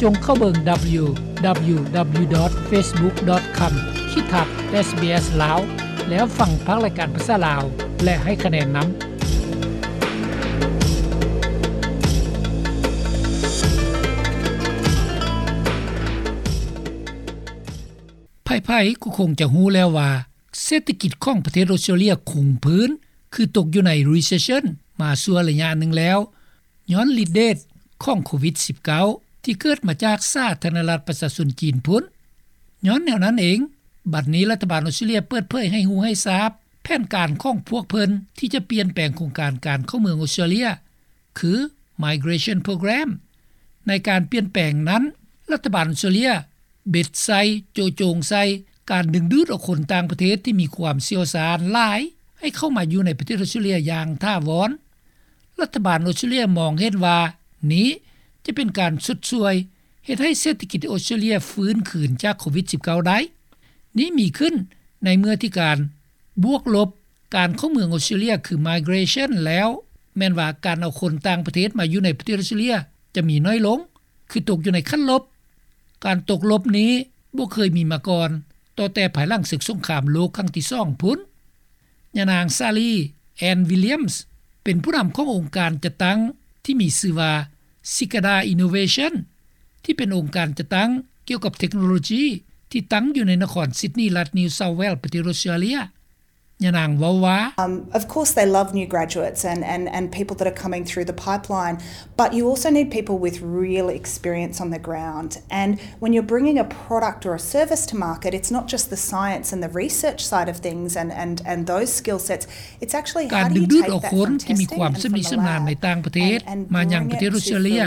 ຈົ່ງເຂົ້າເບິ່ງ www.facebook.com/sbslao ແລ້ວຟັງພາກລາຍການພາສາລາວ ແລະ ໃຫ້ຄະແນນນຳ. ໃຜໆກໍຄົງຈະຮູ້ແລ້ວວ່າ ເສດຖະກິດຂອງປະເທດອອສເຕຣເລັຽຄົງພື້ນ ຄືຕົກຢູ່ໃນ recession ມາຊົ່ວໄລຍະໜຶ່ງແລ້ວ ຍ້ອນລິດເດດຂອງໂຄວິດ-19 ທີ່ເກີດມາຈາກສາທາລະນະລັດປະຊາຊົນຈີນພຸ້ນ. ຍ້ອນແນວນັ້ນເອງ, ບັດນີ້ລັດຖະບານອອສເຕຣເລັຽເປີດເຜີຍໃຫ້ຮູ້ໃຫ້ຊາບ ແຜນການຂອງພວກເພິ່ນທີ່ຈະປ່ຽນແປງໂຄງການການເຂົ້າເມືອງອອສເຕຣເລັຽ ຄື Migration Program. ໃນການປ່ຽນແປງນັ້ນ, ລັດຖະບານອອສເຕຣເລັຽເບັດໃສ່, ໂຈະໂຈງໃສ່ ການດຶງດູດເອົາຄົນຕ່າງປະເທດທີ່ມີຄວາມຊ່ຽວຊານຫຼາຍ ໃຫ້ເຂົ້າມາຢູ່ໃນປະເທດອອສເຕຣເລັຽຢ່າງຖາວອນ. ລັດຖະບານອອສເຕຣເລັຽມອງເຫັນວ່າ ນີ້ຈະເປັນການຊົດຊ່ວຍເຮັດໃຫ້ເສດຖະກິດອອສເຕຣເລັຽຟື້ນຄືນຈາກໂຄວິດ-19 ໄດ້. ນີ້ມີຂຶ້ນໃນເມື່ອທີ່ການບວກລົບການເຂົ້າເມືອງອອສເຕຣເລັຽ ຄື Migration ແລ້ວ ແມ່ນວ່າການເອົາຄົນຕ່າງປະເທດມາຢູ່ໃນປະເທດອອສເຕຣເລັຽຈະມີໜ້ອຍລົງ ຄືຕົກຢູ່ໃນຂັ້ນລົບ. ການຕົກລົບນີ້ບໍ່ເຄີຍມີມາກ່ອນ ຕໍ່ແຕ່ພາຍຫຼັງເສິກສົງຄາມໂລກຄັ້ງທີສອງພຸ້ນ. ຍານາງ Sally Ann Williams ເປັນຜູ້ນຳຂອງອົງການຈັດຕັ້ງທີ່ມີຊື່ວ່າ Cicada Innovation ທີ່ເປັນອົງການຈັດຕັ້ງກ່ຽວກັບເທັກໂນໂລຈີ ທີ່ຕັ້ງຢູ່ໃນນະຄອນຊິດນີ ລັດ New South Wales ປະເທດອອສເຕຣເລັຽ. ຍານາງເວົ້າວ່າ Um, of course, they love new graduates and, and, and people that are coming through the pipeline, but you also need people with real experience on the ground. And when you're bringing a product or a service to market, it's not just the science and the research side of things and, and, and those skill sets. It's actually ການດຶງດູດເອົາຄົນທີ່ມີຄວາມຊຳນິຊຳນານໃນຕ່າງປະເທດມາຍັງປະເທດອອສເຕຣເລັຽ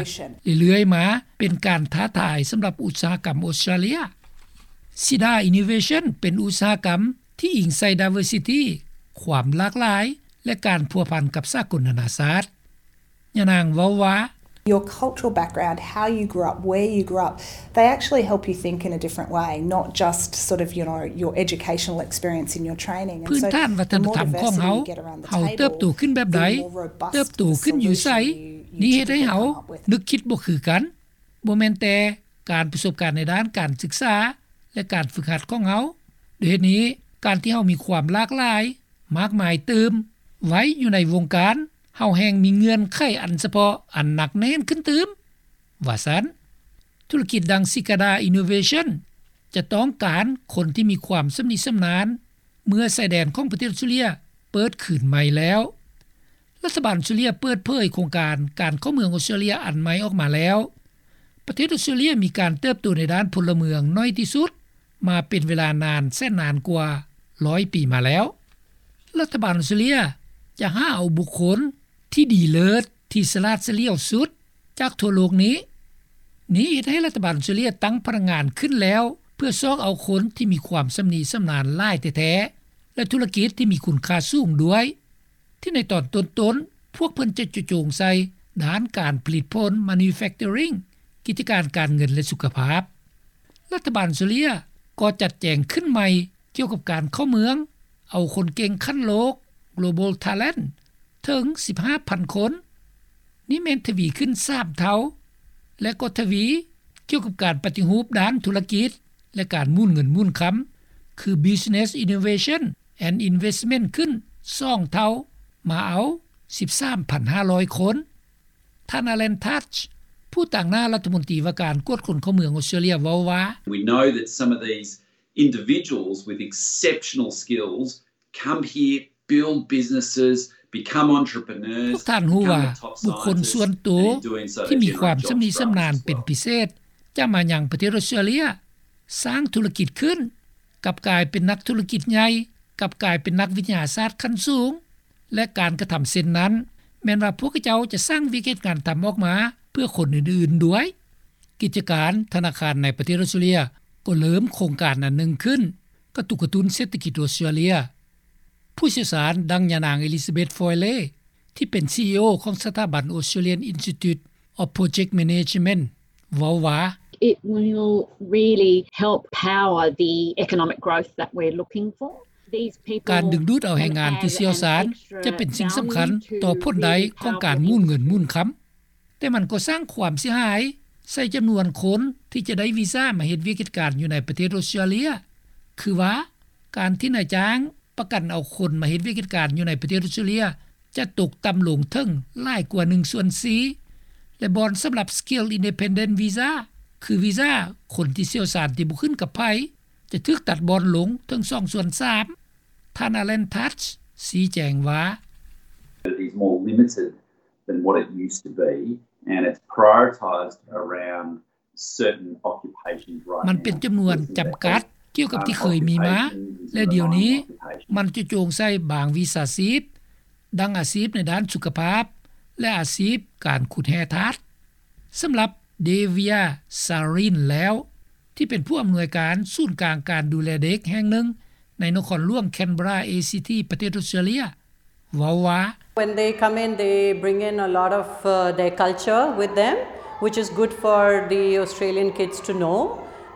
ເລື້ອຍໆມາ ເປັນການທ້າທາຍສຳລັບອຸດສາຫະກຳອອສເຕຣເລັຽ. Cicada Innovation ເປັນອຸດສາຫະກຳ ທີ່ອີງໃສ່ diversity ຄວາມຫຼາກຫຼາຍ ແລະ ການພົວພັນກັບສາກົນນານາຊາດ. ຍານາງເວົ້າວ່າ Your cultural background, how you grew up, where you grew up, they actually help you think in a different way, not just sort of, you know, your educational experience in your training. ພື້ນຖານວັດທະນະທຳຂອງເຮົາ, ເຮົາເຕີບໂຕຂຶ້ນແບບໃດ, ເຕີບໂຕຂຶ້ນຢູ່ໃສ, ນີ້ເຮັດໃຫ້ເຮົານຶກຄິດບໍ່ຄືກັນ. ບໍ່ແມ່ນແຕ່ການປະສົບການໃນດ້ານການສຶກສາ ແລະ ການຝຶກຫັດຂອງເຮົາ. ດ້ວຍເຫດນີ້, ການທີ່ເຮົາມີຄວາມຫຼາກຫຼາຍ ມາກມາຍຕື່ມໄວ້ຢູ່ໃນວົງການ, ເຮົາແຮ່ງມີເງື່ອນໄຂອັນສະເພາະອັນໜັກແໜ້ນຂຶ້ນຕື່ມ, ວ່າຊັ້ນ. ທຸລະກິດດັ່ງ Cicada Innovation ຈະຕ້ອງການຄົນທີ່ມີຄວາມຊຳນິຊຳນານ ເມື່ອຊາຍແດນຂອງປະເທດອອສເຕຣເລັຽເປີດຄືນໃໝ່ແລ້ວ. ລັດຖະບານອອສເຕຣເລັຽເປີດເຜີຍໂຄງການການເຂົ້າເມືອງອອສເຕຣເລັຽອັນໃໝ່ອອກມາແລ້ວ. ປະເທດອອສເຕຣເລັຽມີການເຕີບໂຕໃນດ້ານພົນລະເມືອງໜ້ອຍທີ່ສຸດມາເປັນເວລານານແສນນານກວ່າຮ້ອຍປີມາແລ້ວ. ລັດຖະບານອອສເຕຣເລັຽຈະຫາເອົາບຸກຄົນທີ່ດີເລີດ, ທີ່ສະຫຼາດສະຫຼຽວສຸດຈາກທົ່ວໂລກນີ້. ນີ້ເຮັດໃຫ້ລັດຖະບານອອສເຕຣເລັຽຕັ້ງພະນັກງານຂຶ້ນແລ້ວ ເພື່ອຊອກເອົາຄົນທີ່ມີຄວາມຊຳນິຊຳນານຫຼາຍແທ້ໆ ແລະ ທຸລະກິດທີ່ມີຄຸນຄ່າສູງດ້ວຍ. ທີ່ໃນຕອນຕົ້ນໆ ພວກເພິ່ນຈະເຈາະຈົງໃສ່ດ້ານການຜະລິດຜົນ manufacturing, ກິດຈະການການເງິນ ແລະ ສຸຂະພາບ. ລັດຖະບານອອສເຕຣເລັຽກໍຈັດແຈງຂຶ້ນໃໝ່ກ່ຽວກັບການເຂົ້າເມືອງເອົາຄົນເກັ່ງຂັ້ນໂລກ Global Talent ເຖິງສິບຫ້າພັນຄົນ. ນີ້ແມ່ນທະວີຂຶ້ນສາມເທົ່າ ແລະ ກໍທະວີກ່ຽວກັບການປະຕິຮູບດ້ານທຸລະກິດ ແລະ ການໝູນເງິນໝູນຄຳ ຄື Business Innovation and Investment ຂຶ້ນສອງເທົ່າ ມາເອົາສິບສາມພັນຫ້າຮ້ອຍຄົນ. ທ່ານ Alan Tudge ຜູ້ຕາງໜ້າລັດຖະມົນຕີວ່າການກວດຄົນເຂົ້າເມືອງອອສເຕຣເລັຽເວົ້າວ່າ We know that some of these individuals with exceptional skills come here, build businesses, become entrepreneurs, ພວກທ່ານຮູ້ວ່າ ບຸກຄົນສ່ວນໂຕທີ່ມີຄວາມຊຳນິຊຳນານເປັນພິເສດ ຈະມາຍັງປະເທດອອສເຕຣເລັຽ, ສ້າງທຸລະກິດຂຶ້ນ, ກັບກາຍເປັນນັກທຸລະກິດໃຫຍ່, ກັບກາຍເປັນນັກວິທະຍາສາດຂັ້ນສູງ ແລະ ການກະທຳເຊັ່ນນັ້ນ ແມ່ນວ່າພວກເຂົາເຈົ້າຈະສ້າງວຽກເຮັດງານທຳອອກມາເພື່ອຄົນອື່ນໆດ້ວຍ. ກິດຈະການທະນາຄານໃນປະເທດອອສເຕຣເລັຽກໍເລີ່ມໂຄງການອັນໜຶ່ງຂຶ້ນ ກະຕຸກກະຕຸ້ນເສດຖະກິດອອສເຕຣເລັຽ. ຜູ້ຊ່ຽວຊານດັ່ງຍານາງ Elizabeth Foyle ທີ່ເປັນ CEO ຂອງສະຖາບັນ Australian Institute of Project Management ເວົ້າວ່າ It will really help power the economic growth that we're looking for. ການດຶງດູດເອົາແຮງງານທີ່ຊ່ຽວຊານຈະເປັນສິ່ງສຳຄັນຕໍ່ຜົນໄດ້ຂອງການໝູນເງິນໝູນຄຳ, ແຕ່ມັນກໍສ້າງຄວາມເສຍຫາຍ ໃສ່ຈຳນວນຄົນທີ່ຈະໄດ້ວີຊາມາເຮັດວຽກເຮັດການຢູ່ໃນປະເທດອົດສະຕຣາເລຍ ຄືວ່າການທີ່ນາຍຈ້າງປະກັນເອົາຄົນມາເຮັດວຽກເຮັດການຢູ່ໃນປະເທດອົດສະຕຣາເລຍ ຈະຕົກຕ່ຳລົງເຖິງຫຼາຍກວ່າໜຶ່ງສ່ວນສີ່ ແລະ ບ່ອນສຳລັບ Skill Independent Visa ຄືວີຊາຄົນທີ່ຊ່ຽວຊານທີ່ບໍ່ຂຶ້ນກັບໃຜ ຈະຖືກຕັດບ່ອນລົງເຖິງສອງສ່ວນສາມ. ທ່ານ Alan Touch ຊີ້ແຈງວ່າ It is more limited than what it used to be and it's prioritised around certain occupations right now. ມັນເປັນຈຳນວນຈຳກັດກ່ຽວກັບທີ່ເຄີຍມີມາ ແລະ ດຽວນີ້ມັນຈະໂຈງໃສ່ບາງວິຊາຊີບ ດັ່ງອາຊີບໃນດ້ານສຸຂະພາບ ແລະ ອາຊີບການຂຸດແຮ່ທາດ. ສຳລັບ Devia Sarin ແລ້ວ ທີ່ເປັນຜູ້ອຳນວຍການສູນກາງການດູແລເດັກແຫ່ງໜຶ່ງໃນນະຄອນຫຼວງ Canberra ACT ປະເທດອົດສະຕຣາເລຍ ເວົ້າວ່າ When they come in, they bring in a lot of uh, their culture with them, which is good for the Australian kids to know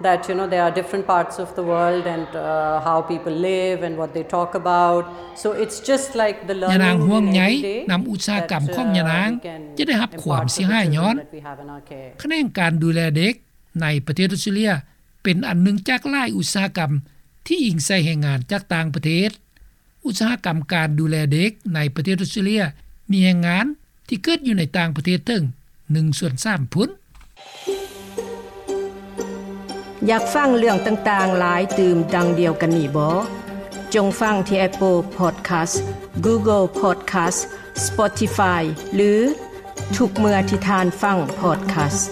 that you know there are different parts of the world and uh, how people live and what they talk about. So it's just like the learning. ຍານາງຫ່ວງໃຍນຳອຸດສາຫະກຳຂອງຍານາງ ຈະໄດ້ຮັບຄວາມເສຍຫາຍຍ້ອນ ຂະແໜງການດູແລເດັກໃນປະເທດອົດສະຕຣາເລຍ ເປັນອັນໜຶ່ງຈາກຫຼາຍອຸດສາຫະກຳທີ່ອີງໃສ່ແຮງງານຈາກຕ່າງປະເທດ. ອຸດສາຫະກຳການດູແລເດັກໃນປະເທດອົດສະຕຣາເລຍ ມີແຮງງານທີ່ເກີດຢູ່ໃນຕ່າງປະເທດເຖິງໜຶ່ງສ່ວນສາມພຸ້ນ. ຢາກຟັງເລື່ອງຕ່າງໆຫຼາຍຕື່ມດັ່ງດຽວກັນນີ້ບໍ? ຈົ່ງຟັງທີ່ Apple Podcast, Google Podcast, Spotify ຫຼື ທຸກເມື່ອທີ່ທ່ານຟັງ Podcast.